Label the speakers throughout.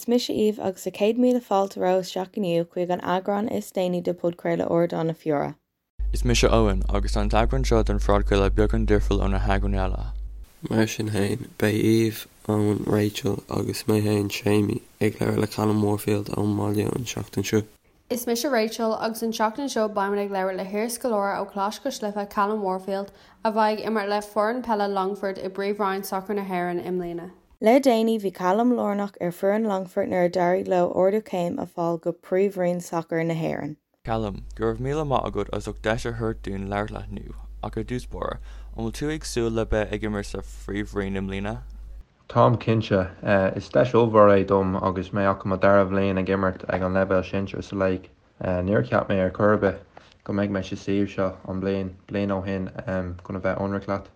Speaker 1: Is mise Aoibh agus tá 100,000 fáilte romhaibh isteach inniu chuig an eagrán is déanaí de podchraoladh Ardán na Feóire.
Speaker 2: Is mise Eoin, agus tá an t-eagrán seo den phodchraoladh beagán difriúil ó na heagráin eile.
Speaker 3: Mar sin féin, beidh Aoibh, Eoin, Rachel agus mé féin, Séimí, ag labhairt le Callum Warfield ón mbaile an tseachtain seo.
Speaker 4: Is mise Rachel agus an tseachtain seo beimid ag labhairt le hiarscoláire ó Choláiste Cois Life, Callum Warfield, a bheidh ag imirt le foireann peile Longfort i bPríomhroinn Sacair na hÉireann i mbliana.
Speaker 1: Le déanaí bhí Callum lárnach ar foireann Longfort nuair a d'éirigh leo ardú céim a fáil go Príomhroinn Sacair na hÉireann.
Speaker 2: Callum, go raibh míle maith agat as ucht deis a thabhairt dúinn labhairt leat inniu, ach ar dtús báire, an bhfuil tú ag súil le beith ag imirt sa Phríomhroinn i mbliana?
Speaker 3: Táim cinnte. Is deis ollmhór é dom agus mé ach i mo dara bhliain ag imirt ag an leibhéal sinsir sa léig. Níor cheap mé ar chor ar bith go mbeidh mé sa suíomh seo an bliain, bliain ó shin chun a bheith ionraic leat.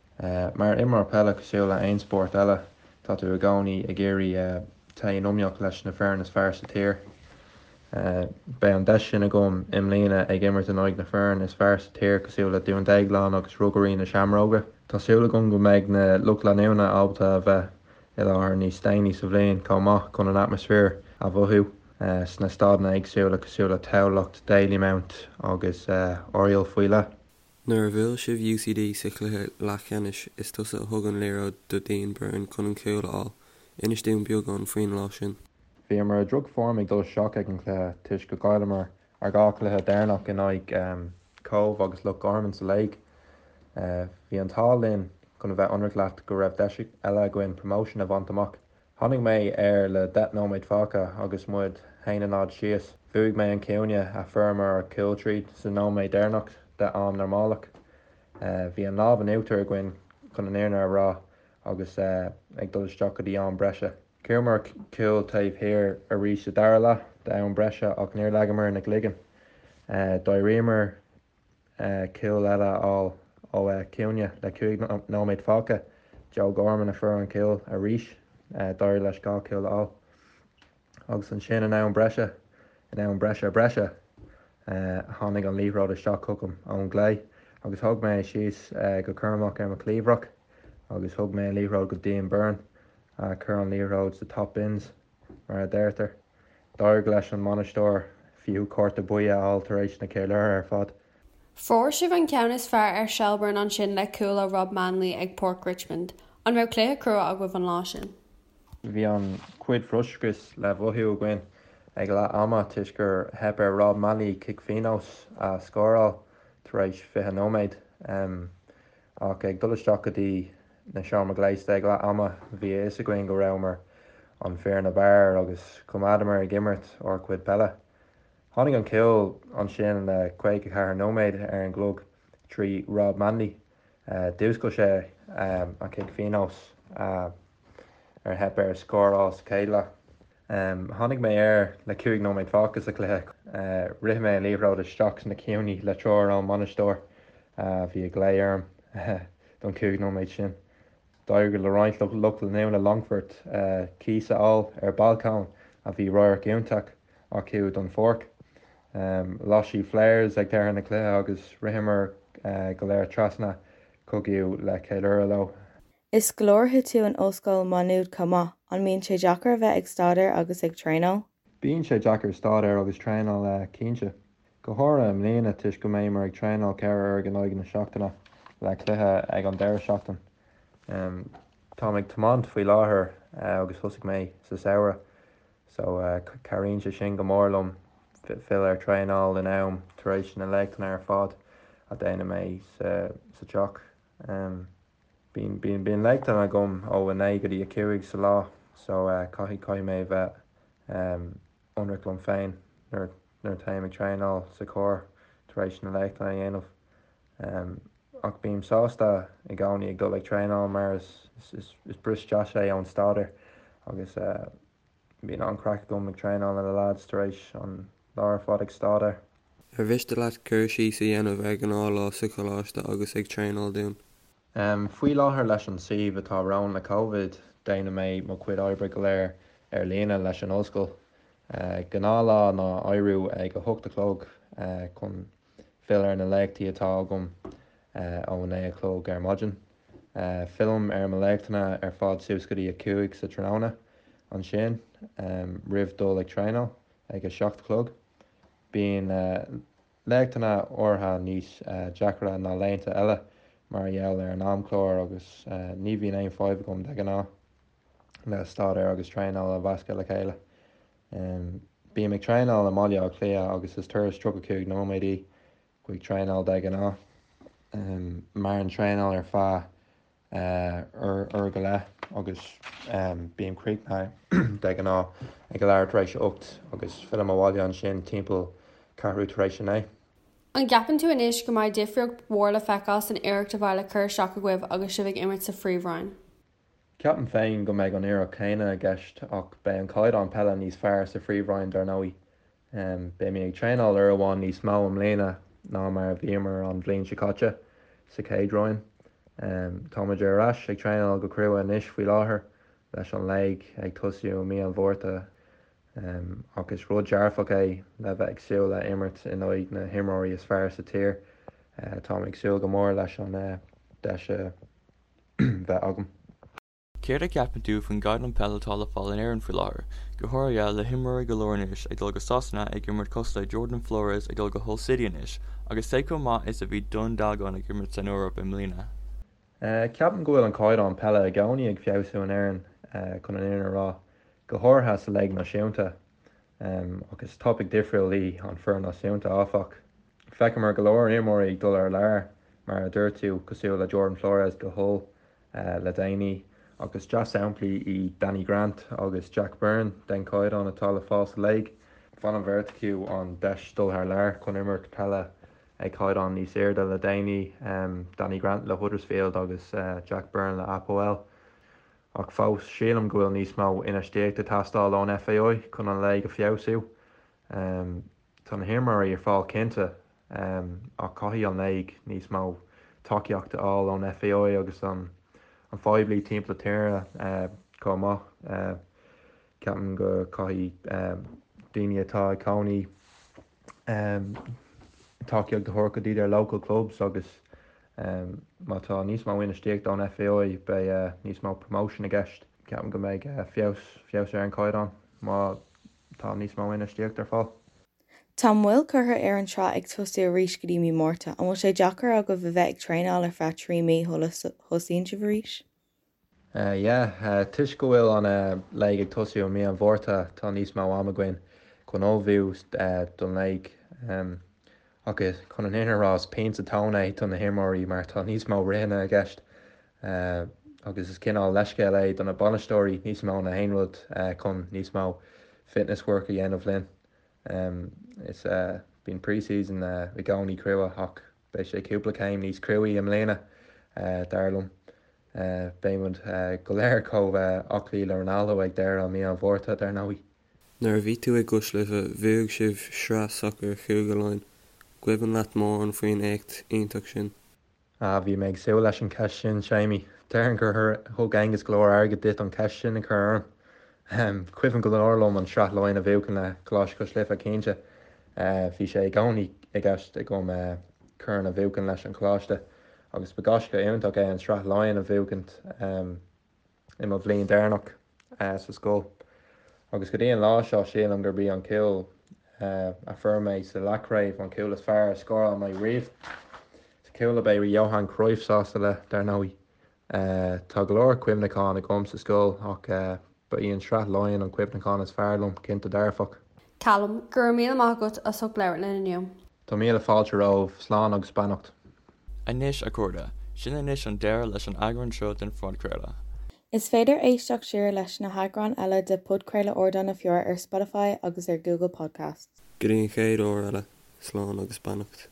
Speaker 3: Mar imreoir peile cosúil le aon spórt eile, tá tú i gcónaí ag iarraidh téigh in iomaíocht leis na foireann is fearr sa tír. Beidh an deis sin agam i mbliana ag imirt in aghaidh na foireann is fearr sa tír cosúil le Dún Déagláin agus Rugairí na Seamróige. Tá súil agam go mbeidh na lucht leanúna ábalta a bheith i láthair níos déanaí sa bhliain chomh maith chun an atmaisféar a mhothú sna staideanna éagsúla cosúil le Tamhlacht, Dalymount agus Oriel faoi leith.
Speaker 5: Nuair a bhuail sibh UCD sa chluiche leathcheannais, is tusa a thug an liathróid do Dean Byrne chun an cúl a fháil. Inis dúinn beagán faoin lá sin.
Speaker 3: Bhíomar i droch-form ag dul isteach ag an chluiche toisc go gcailleamar ár dhá chluiche deireanach in aghaidh Cobh agus Loch Garman sa léig. Bhí an t-ádh linn, chun a bheith ionraic leat, go raibh deis eile againn promotion a bhaint amach. Tháinig mé air le 10 nóiméad fágtha agus muid 1-0 síos. Bhuaigh mé an cúinne a fuaireamar ár gcúl tríd sa nóiméad deireanach de am normálach. Bhí an lámh in uachtar againn chun an fhírinne a rá agus ag dul isteach go dtí am breise. Chuamar cúl taobh thiar arís sa dara leath de am breise ach níor leagamar na gcloigeann. D'éiríomar cúl eile a fháil ó chúinne le 5 nóiméad fágtha. Joe Gorman a fuair an cúl arís. D'éirigh leis dhá chúl a fháil. Agus ansin in am breise, in am breise breise, tháinig an liathróid isteach chugam ón gclé agus thóg mé é síos go cúramach ar mo chliabhrach agus thug mé an liathróid go Dean Byrne a chuir an liathróid sa top bins. Mar a deirtear, d'éirigh leis an mbainisteoir fiú cárta buí a fháil tar éis na ceiliúrtha ar fad.
Speaker 4: Fuair sibh an ceann is fearr ar Shelbourne ansin le cúl ó Rob Manley ag Páirc Richmond. An raibh cluiche crua agaibh an lá sin?
Speaker 3: Bhí an-chuid frustrachais le mhothú againn ag leath ama toisc gur theip ar Rob Manley cic phionóis a scóráil tar éis 20 nóiméad. Ach ag dul isteach go dtí na seomra gléasta ag leath ama, bhí a fhios againn go rabhamar an foireann ab fhearr agus choimeádamar ag imirt ár gcuid peile. Tháinig an cúl ansin le 54 nóiméad ar an gclog trí Rob Manley. D'fhuascail sé an cic phionóis ar theip air scóráil sa chéad leath. Tháinig mé air le 5 nóiméad fágtha sa chluiche. Rith mé an liathróid isteach sna cúinní le treoir ón mbainisteoir a bhí ag glao orm don 5 nóiméad sin. D'éirigh le roinnt lucht leanúna Longfort cíos a fháil ar balcóin a bhí radharc iontach acu don pháirc. Las siad flares ag deireadh na cluiche agus ritheamar go léir trasna chucu le ceiliúradh leo.
Speaker 1: Is scoláire tú in Ollscoil Maigh Nuad chomh maith, an mbíonn sé deacair a bheith ag staidéar agus ag traenáil?
Speaker 3: Bíonn sé deacair staidéar agus traenáil cinnte. Go háirithe i mbliana toisc go mbeimid ag traenáil 4 uair in aghaidh na seachtaine le cluiche ag an deireadh seachtain. Táim ag tiomáint faoi láthair agus thosaigh mé sa samhradh so cabhraíonn sé sin go mór liom fill ar traenáil in am tar éis na léachtanna ar fad a déanann mé sa teach. Bíonn, bíonn, bíonn léachtanna agam ó 9 go dtí 5 sa lá so caithfidh, caithfidh mé a bheith ionraic liom féin nuair, nuair a téim ag traenáil sa charr tar éis na léachtanna a dhéanamh. Ach bím sásta i gcónaí ag dul ag traenáil mar is, is, is bris deas é ón staidéar agus Bíonn an-chraic agam ag traenáil le na lads tar éis an lá ar fad ag staidéar.
Speaker 5: Ar mhiste leat cur síos a dhéanamh ar ghnáthlá sa choláiste agus ag traenáil dúinn?
Speaker 3: Faoi láthair leis an suíomh atá romhainn le Covid, déanann mé mo chuid oibre go léir ar líne leis an ollscoil. Gnáthlá ná éiriú ag 8 a chlog chun fill ar na léachtaí atá agam ó 9 a chlog ar maidin. Fillim ar mo léachtanna ar fad suas go dtí a 5 sa tráthnóna. ansin roimh dul ag traenáil ag a 7 a chlog. Bíonn laethanta áirithe níos deacra ná laethanta eile mar gheall ar an amchlár agus ní bhíonn aon fadhb agam de ghnáth le staidéar agus traenáil a mheascadh le chéile. Bím ag traenáil i mBaile Átha Cliath agus is turas 35 nóiméad í chuig traenáil de ghnáth. Maireann traenáil ar feadh uair go leith agus bím críochnaithe de ghnáth ag a leathuair tar éis a 8 agus fillim abhaile ansin timpeall ceathrú tar éis a 9.
Speaker 4: An gceapann tú anois go mbeidh difríocht mhór le feiceáil san iarracht a bheidh le cur isteach agaibh agus sibh ag imirt sa Phríomhroinn?
Speaker 3: Ceapaim féin go mbeidh an iarracht chéanna i gceist ach beidh an caighdeán peile níos fearr sa Phríomhroinn dar ndóigh. Beimid ag traenáil uair amháin níos mó i mbliana ná mar a bhíomar an bhliain seo caite sa chéad roinn. Táimid ar ais ag traenáil go crua anois faoi láthair leis an léig ag tosú i mí an Mhárta ach is rud dearfach é le bheith ag súil le imirt in aghaidh na himreoirí is fearr sa tír. Táim ag súil go mór leis an deis a bheith agam.
Speaker 2: Céard a cheapann tú faoin gcaighdeán peile atá le fáil in Éirinn faoi láthair, go háirithe le himreoirí go leor anois ag dul go Sasana ag imirt cosúil le Jordan Flores ag dul go Hull City anois agus cé chomh maith is a bhí Dún Dealgan ag imirt san Eoraip i mbliana?
Speaker 3: Ceapaim go bhfuil an caighdeán peile i gcónaí ag feabhsú in Éirinn, chun an fhírinne a rá, go háirithe sa léig náisiúnta. Ach is topaic difriúil í an foireann náisiúnta, áfach. Feiceamar go leor imreoirí ag dul thar lear, mar a dúirt tú, cosúil le Jordan Flores go Hull, le déanaí, ach is dea-shamplaí iad Danny Grant agus Jack Byrne den chaighdeán atá le fáil sa léig. Bhain an bheirt acu an deis dul thar lear chun imirt peile ag caighdeán níos airde le déanaí, Danny Grant le Huddersfield agus Jack Byrne le APOEL. Ach fós, sílim go bhfuil níos mó infheistíochta ag teastáil ón FAI chun an léig a feabhsú. Tá na himreoirí ar fáil cinnte, ach caithfidh an léig níos mó tacaíocht a fháil ón FAI agus an phoiblí timpeall na tíre chomh maith. Ceapaim go caithfidh daoine atá ag cónaí tacaíocht a thabhairt go dtí their local clubs agus má tá níos mó infheistíochta ón FAI beidh níos mó promotion i gceist. Ceapaim go mbeidh feabhas feabhas ar an caighdeán má Tá níos mó infheistíocht ar fáil.
Speaker 1: Tá moill curtha ar an tsraith ag tosú arís go dtí mí Márta. An bhfuil sé deacair agaibh a bheith ag traenáil ar feadh 3 mí shula thosaíonn sibh arís?
Speaker 3: Yeah, toisc go bhfuil an léig ag tosú i mí an Mhárta tá níos mó am againn chun ullmhú don léig. Ach chun an fhírinne a rá is pian sa tóin é do na himreoirí mar tá níos mó ritheanna i gceist agus is cineál leithscéal é do na bainisteoirí níos mó ná aon rud chun níos mó fitness work a dhéanamh linn. Is bíonn pre-season i gcónaí crua ach beidh sé cúpla céim níos cruaí i mbliana dar liom. Beidh muid go léir chomh aclaí le Ronaldo ag deireadh mí an Mhárta dar ndóigh.
Speaker 5: Nuair a bhí tú i gCois Life, bhuaigh sibh sraith sacair Chúige Laighean. Cuimhin leat mórán faoin éacht iontach sin?
Speaker 3: Ah, bhí mé ag súil leis an cheist sin, Séimí. Déarfainn gur thug Aengus go leor airgid duit an cheist sin a chur orm. Cuimhin go leor liom an Sraith Laighean a bhuachan le Coláiste Cois Life, cinnte. Bhí sé i gcónaí i gceist agam corn a bhuachan leis an choláiste agus ba gaisce iontach é an Sraith Laighean a bhuachaint. i mo bhliain deireanach sa scoil agus go dtí an lá seo sílim gurb í an cúl a fuair mé sa leathchraobh an cúl is fearr a scóráil mé riamh. Is cúl a mbeidh Johan Cruyff sásta le, dar ndóigh. Tá go leor cuimhneachán agam sa scoil ach ba í an Sraith Laighean an cuimhneachán is fearr liom, cinnte dearfach.
Speaker 4: Callum, go raibh míle maith agat as ucht labhairt linn inniu.
Speaker 3: Tá míle fáilte romhaibh, slán agus beannacht.
Speaker 2: Anois, a chairde, sin anois an deireadh leis an eagrán seo den phodchraoladh.
Speaker 1: Is féidir éisteacht siar leis na heagráin eile de Podchraoladh Ardán na Feóire ar Spotify agus ar Google Podcasts.
Speaker 5: Go dtí an chéad uair eile, slán agus beannacht.